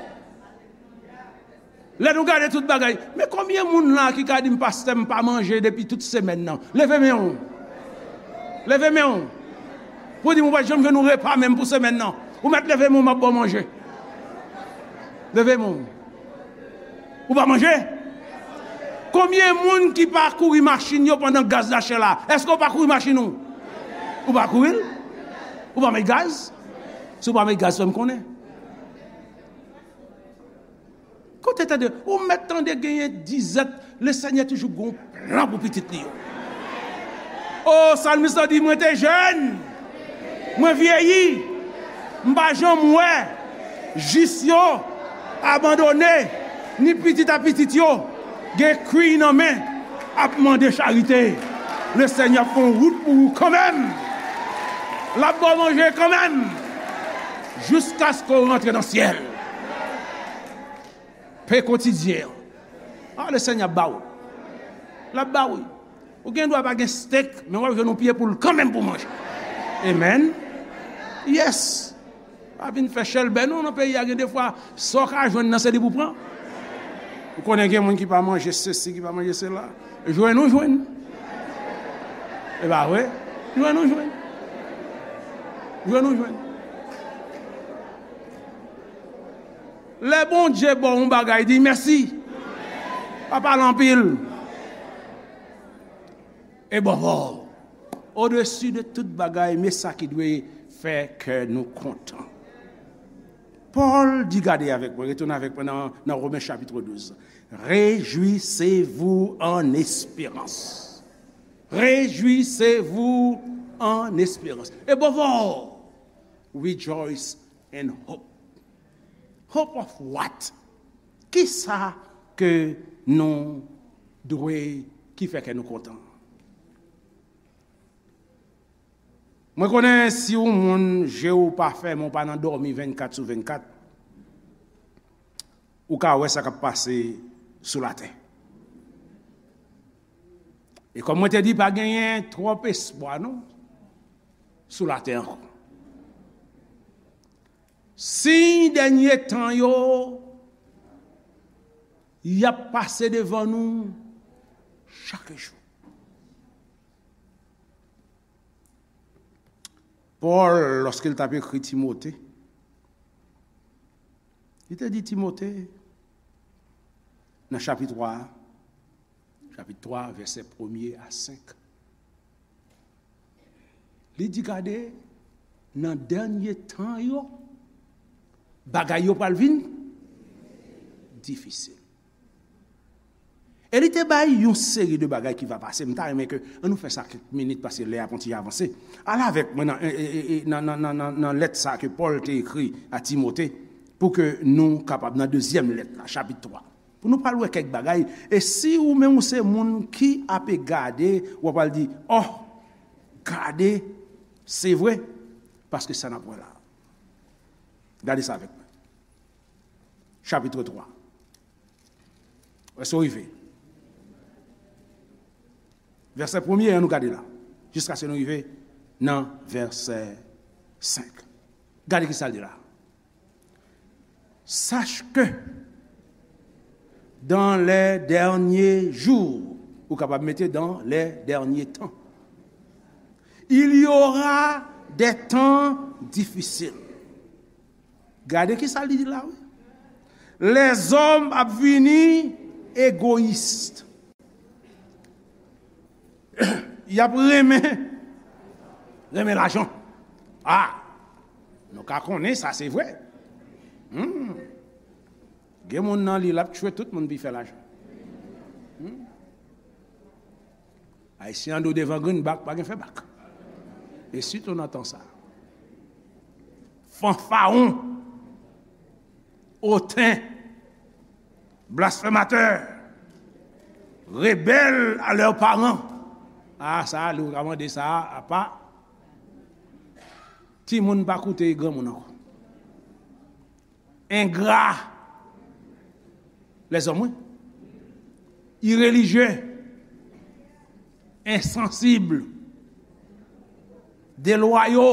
lè nou gade tout bagay, men konbyen moun la ki ka di m, "Pastè, m pa manje depi tout semèn nan"? Leve men w. Leve men w. Pou di m ou pa t janm jwenn yon repa menm pou semèn nan. Ou mèt leve men w, m ap ba w manje. Leve men w. Ou pa manje? Konbyen moun ki pa kouri machin yo pandan gaz la chè la? Èske w pa kouri machin ou? Ou pa kouri l? Ou pa met gaz? Si w pa met gaz, fè m konnen. Kote tande, ou mèt tande genyen dizèt, Lesenyè toujou gen yon plan pou pitit li yo. O, salmis la di, "Mwen te jèn, mwen vyeyi, m pa janm wè jis yo abandone, ni pitit a pitit yo gen kwiy nan men, ap mande charite." Lesenyè ap fè yon wout pou ou kanmenm. L ap ba w manje kanmenm. Jiskaske w rantre nan syèl. Pen kotidyen an. A, Lesenyè ap ba w. L ap ba w, wi. Ou gen dwa pa gen stek, men w ap jwenn yon pye poul kanmenm pou manje. Amen. Yes. Pa vin fè chèlbè non nan peyi a, gen defwa, sa w ka jwenn nan, se li pou pran. Ou konnen gen moun ki pa manje sesi, ki pa manje sela. Jwenn ou jwenn. E pa vre? Jwenn ou jwenn. Jwenn ou jwenn. Lè Bondye ba w yon bagay, di mèsi. Pa pale anpil. Above all, odesi de tout bagay, men sa ki dwe fè kè nou kontan. Pòl di, gade avèk mwen, retounen avèk mwen nan, nan Women chapit douz. Réjouissez-vous en espérance. Réjouissez-vous en espérance. Above all, rejoice in hope. Hope of what? Kisa ke nou dwe, ki fè kè nou kontan? Mwen konnen si yon moun, je w pa fèmen, w pa nan dòmi vennkat sou vennkat, ou ka wè sa k ap pase sou latè. E kòm mwen te di, pa genyen twòp espwa non sou latè ankò. Siy dènye tan yo, y ap pase devan nou chak jou. Pòl, lòske l t ap ekri Timote, li te di Timote, nan chapit twa a, chapit twa, vèsè premye a senk, li di, gade, nan dènye tan yo, bagay yo pral vin difisil. E li te bay yon seri de bagay ki va pase. M ta renmen ke, ann nou fè sa kèk minit, paske lè a pon ti avanse. Al avèk mwen nan, e, e, e, e, nan, nan, nan, nan, nan lèt sa ke Pòl te ekri a Timote, pou ke nou kapab nan dezyèm lèt la, chapit twa. Pou nou pral wè kèk bagay. E si ou menm ou se moun ki ape gade, w ap al di, oh, gade, se vre, paske sa n ap wè la. Gade sa avèk mwen. Chapit twa. Èske w rive? Vèsè premye an, nou gade la. Jiskaske nou rive nan vèsè senk. Gade ki sa l di la. Sache que dans les derniers jours, ou kapab mete dans les derniers temps, il y aura des temps difficiles. Gade ki sa li di la, wi. Lèzòm ap vini egoyis. Y ap renmen, renmen lajan. Ah, nou ka konnen sa se vre. Hmm. Gen moun nan li, l ap tchwe tout moun pou l fè lajan. Hmm. Ayisyen an di w devan grenn bak, pa gen fè bak. E sitou nan tan sa. Fanfaron, oten, blasfèmatè, rebèl a lè paran, A, sa a, li w ka mande sa a, apa. Timoun pa koute granmoun ankò. Engra. Lèzòm, wi. Irelijye. Ensansib. Delwayo.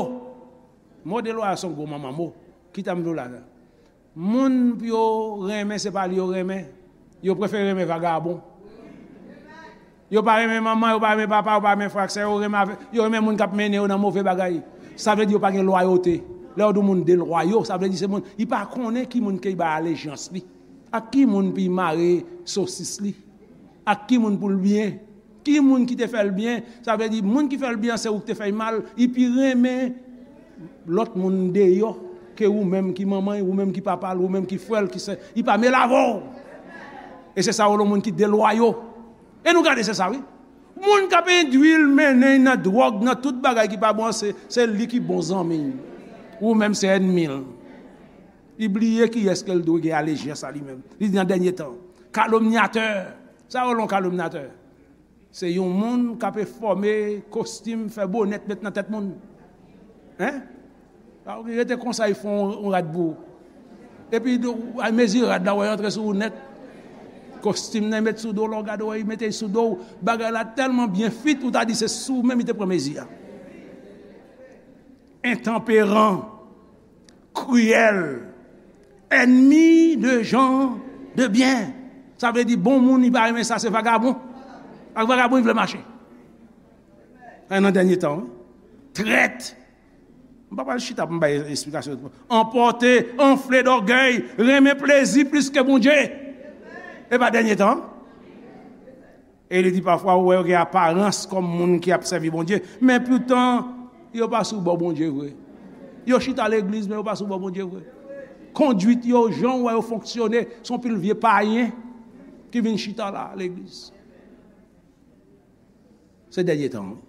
Mo delwayo se yon gwo manman mo. Kite m di w la. Moun pou yo renmen, se pa li yo renmen. Yo prefere renmen vagabon. Yo pa renmen manman, yo pa renmen papa, yo pa renmen frè ak sè, yo renmen avè, yo renmen moun k ap mennen yo nan move bagay. Sa vle di yo pa gen lwayote. Lè yo di yon moun delwayo, sa vle di se moun, li pa konnen ki moun ke li bay alejans li. Ak ki moun pou li mare sosis li. Ak ki moun pou l byen. Ki moun ki te fè l byen, sa vle di moun ki fè l byen an se ou ki te fè l mal, li pi renmen lòt moun deyò ke ou menm ki manman l, ou menm ki papa l, ou menm ki frè l, ki sè, li pa mele avè w. E se sa yo rele moun ki delwayo. E nou gade se sa wi. Moun k ap endwi l mennen l nan dwòg, nan tout bagay ki pa bon, se, se li ki bon zanmi l. Ou menm se ènmi l. Li bliye kiyès ke l dwe gen alejans a li menm. Li di nan dènye tan. Kalomnyatè. Sa yo rele yon kalomnyatè. Se yon moun k ap fòme kostim, fè bonèt, met nan tèt moun. Hein? A, ou rete konsa, li fè yon, yon rad pou ou. Epi, ou al mezi rad la, wè, antre sou ou nèt. Kostim nan, met sou do, lè w gade, wè, li mete sou do w. Bagay la tèlman byen fit, ou ta di se sou ou menm li te pran mezi a. Entanperan, kriyèl, ènmi de jan de byen. Sa vle di bon moun, li pa renmen sa, se vagabon. Ak vagabon, li vle mache. Sa nan dènye tan, wi. Trèt. M pa pral chita pou m bay esplikasyon. Anpòte, anfle dògèy, renmen plezi plis ke Bondye. E pa dènye tan. E li di pafwa, ou wè yo gen aparans kòm moun ki ap sèvi Bondye, men poutan, yo pa sou bò Bondye vre. Yo chita legliz, men yo pa sou bò Bondye vre. Kondwit yo, jan w wè yo fonksyone, se yon pil vye payen ki vin chita la, legliz. Se dènye tan, wi.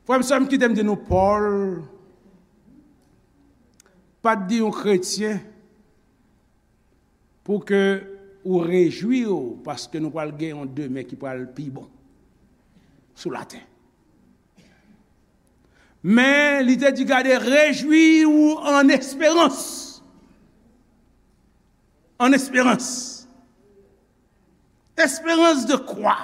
Frè m, sè m, kite m di nou, Pòl pa t di yon kretyen pou ke ou rejwi w, paske nou pral gen yon demen ki pral pi bon sou latè. Men, li te di, gade, rejwi w an esperans. An esperans. Espérance de quoi?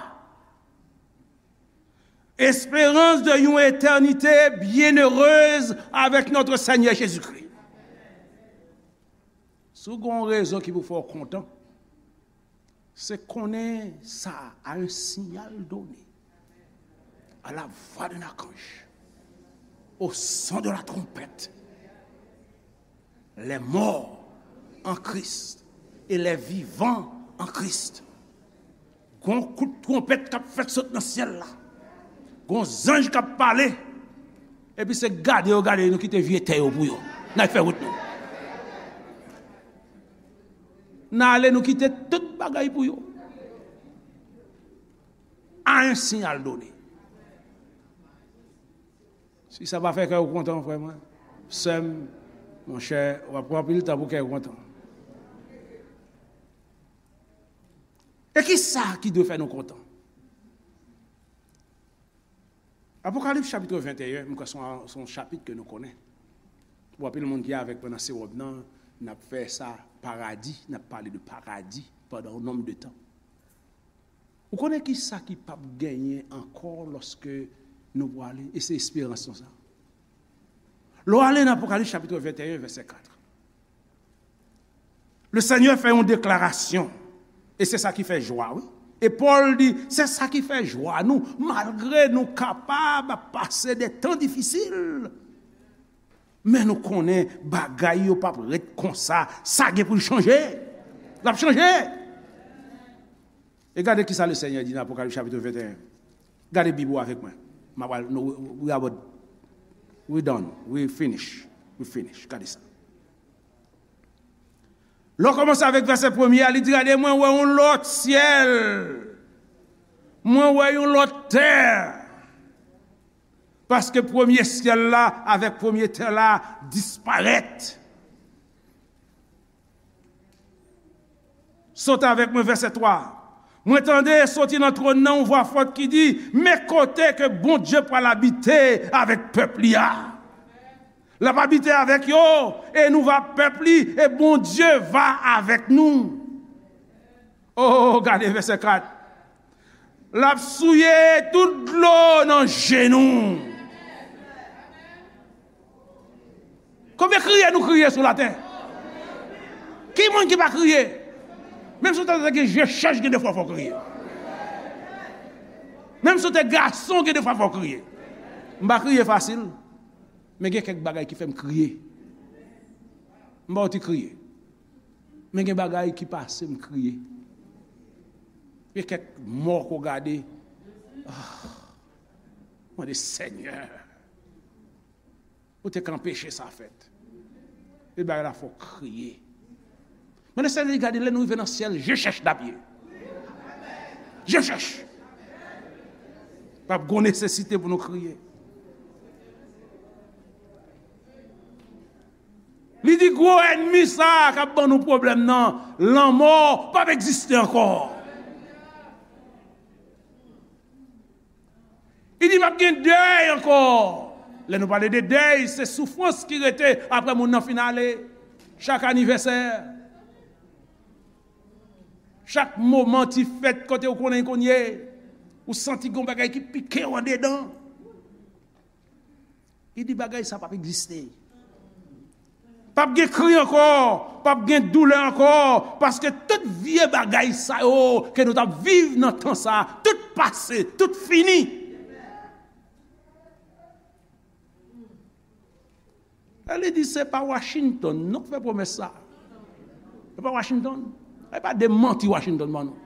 Espérance de yon eternite byennerez avèk notre Seigneur Jésus-Christ. Si w gen yon rezon ki pou fè w kontan, se konnen sa, à un signal donné, à la voix d'un archange, au son de la trompette, les morts en Christ et les vivants en Christ. Gon kout twonpèt k ap fèt sot nan syèl la. Gon zanj k ap pale. Epi se gade yo gade, nou kite vye tè yo pou yo. N al fè wout nou. N ale, nou kite tout bagay pou yo. À un signal donné. Si sa pa fè kè w kontan, frè mwen, sè m, monchè, w ap pran anpil tan pou kè w kontan. E ki sa ki dwe fè nou kontan? Apokalips chapit venteyen, m kwè se yon, se yon chapit ke nou konnen. Pou anpil moun ki avèk mwen nan sewòm nan, n ap fè sa paradi, n ap pale de paradi pandan yon nonm de tan. Ou konnen ki sa ki p ap genyen ankò lòske nou prale, e se esperans nou sa. Lè w ale nan Apokalips chapit venteyen, vèsè kat. Le Senyè fè yon deklarasyon, e se sa ki fè jwa, wi. E Pòl di, se sa ki fè jwa nou, malgre nou kapab ap pase de tan difisil. Men nou konnen bagay yo p ap ret konsa, sa gen pou l chanje. L ap chanje. E gade ki sa le Senyè di nan Apokalips chapit venteyen. Gade Bib ou avèk mwen. M ap al, nou, we, we about, we done, we finish, we finish. Gade sa. Lè w kòmanse avèk vèsè premye a, li di, gade, mwen wè yon lòt syèl, mwen wè yon lòt tè. Paske premye syèl la avèk premye tè la disparèt. Sot avèk mwen, vèsè twa. Mwen tande soti nan twòn nan yon vwa fòt ki di, men kote ke Bondye pral abite avèk pèp li a. L ap abite avèk yo, e nou va pèp li, e Bondye va avèk nou. Oh, gade vèsè kat. L ap souye tout dlo nan je nou. Konbyen kriye nou kriye sou latè? Ki moun ki pa kriye? Menm si w te gen je chèch, gen de fwa fò w kriye. Menm si w te gason, gen de fwa fò w kriye. M pa kriye fasil, men gen kèk bagay ki fè m kriye. M pa w ti kriye. Men gen bagay ki pase m kriye. Gen kèk mò ke w gade. Ah, mande Senyè. Ou te ka anpeche sa fèt. E bagay la fè w kriye. Mande Senyè, gade, lè nou rive nan syèl, je chèch n ap ye. Je chèch. P ap gon nesesite pou nou kriye. Li di gwo ènmi sa a k ap ban nou pwoblèm nan, lanmò, p ap egziste ankò. Li di, p ap gen dèy ankò. Lè nou pale de dèy, se soufrans ki rete apre moun nan fin ale. Chak anivèsè, chak moman ti fèt kote ou konnen konye, ou santi gon bagay ki pike w andedan. Li di bagay sa p ap egziste. P ap gen kri ankò, p ap gen doulè ankò, paske tout vye bagay sa yo ke nou t ap viv nan tan sa, tout pase, tout fini. E li di se pa Washington non k fè pwomès sa. Se pa Washington. E pa de manti Washington ban nou.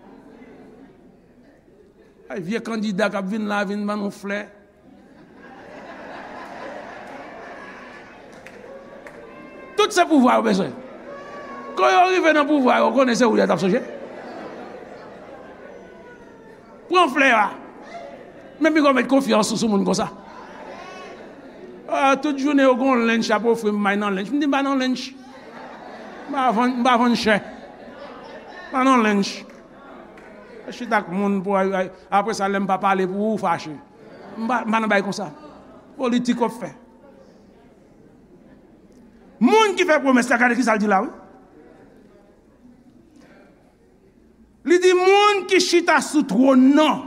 Ay, vye kandida k ap vin la, vin ban nou flè. Tout se pouvwa yo bezwen. Kan yo rive nan pouvwa yo, konnen se ou yo t ap sonje. Pran flè a. Men piga w met konfyans ou sou moun konsa. Ah, tout jounen yo gon lench y ap ofri m, m bay nan lench. M di m pa nan lench. M pa vann, m pa vann chè. M pa nan lench. Chita ak moun pou, apre sa, lè m pa pale pou ou, ou fache. M pa, m pa nan bay konsa. Politik w ap fè. Moun ki fè pwomès la, gade kisa l di la, wi. Li di moun ki chita sou twòn nan.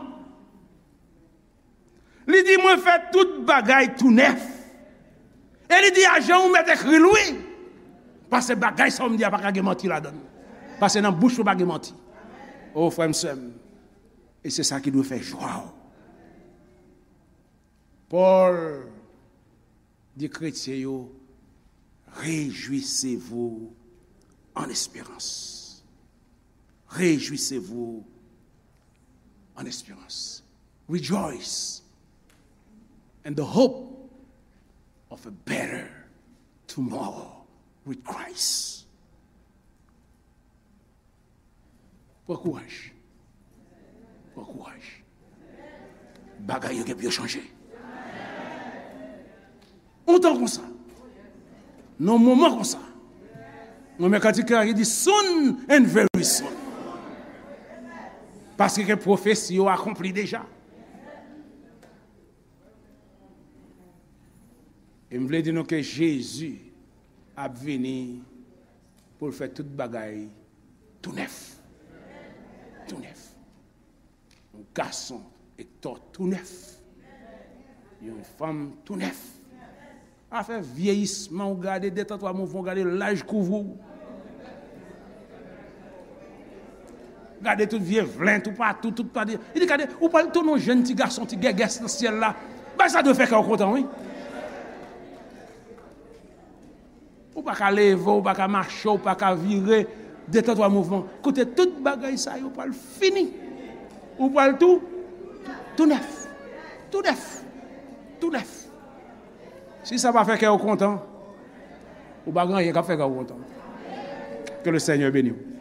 Li di mwen fè tout bagay tou nèf. E li di a jan ou mèt ekri l, wi. Paske bagay sa w m di a pa ka gen manti ladan l. Paske nan bouch ou pa gen manti. O frè m, sè m. E se sa ki dwe fè jwa w. Pòl di kretyen yo, réjouissez-vous en espérance. Réjouissez-vous en espérance. Rejoice in the hope of a better tomorrow with Christ. Pran kouraj. Pran kouraj. Bagay yo gen pou yo chanje. Yon tan konsa. Nan yon moman konsa. Mwen men kantik la ki di soon and very soon. Paske ke pwofesi yo akonpli deja. E m vle di nou ke Jezi ap vini pou l fè tout bagay tou nèf. Tou nèf. Yon gason Ektò tou nèf. Yon fanm tou nèf. Afè vyeyisman, ou gade de tan twa mouvman, ou gade laj kouvri w. Gade tout vye vlen toupatou, tout pati. Li di gade, ou pral tounen yon jèn ti gason, ti gègès nan syèl la. Bagay sa dwe fè kè w kontan, wi. Ou pa ka leve, ou pa ka mache, ou pa ka vire, de tan twa mouvman. Kote tout bagay sa yo pral fini. Ou pral tou, tou nèf. Tou nèf. Tou nèf. Si sa pa fè kè w kontan, ou pa gen anyen k ap fè kè w kontan. Ke le Senyè beni w.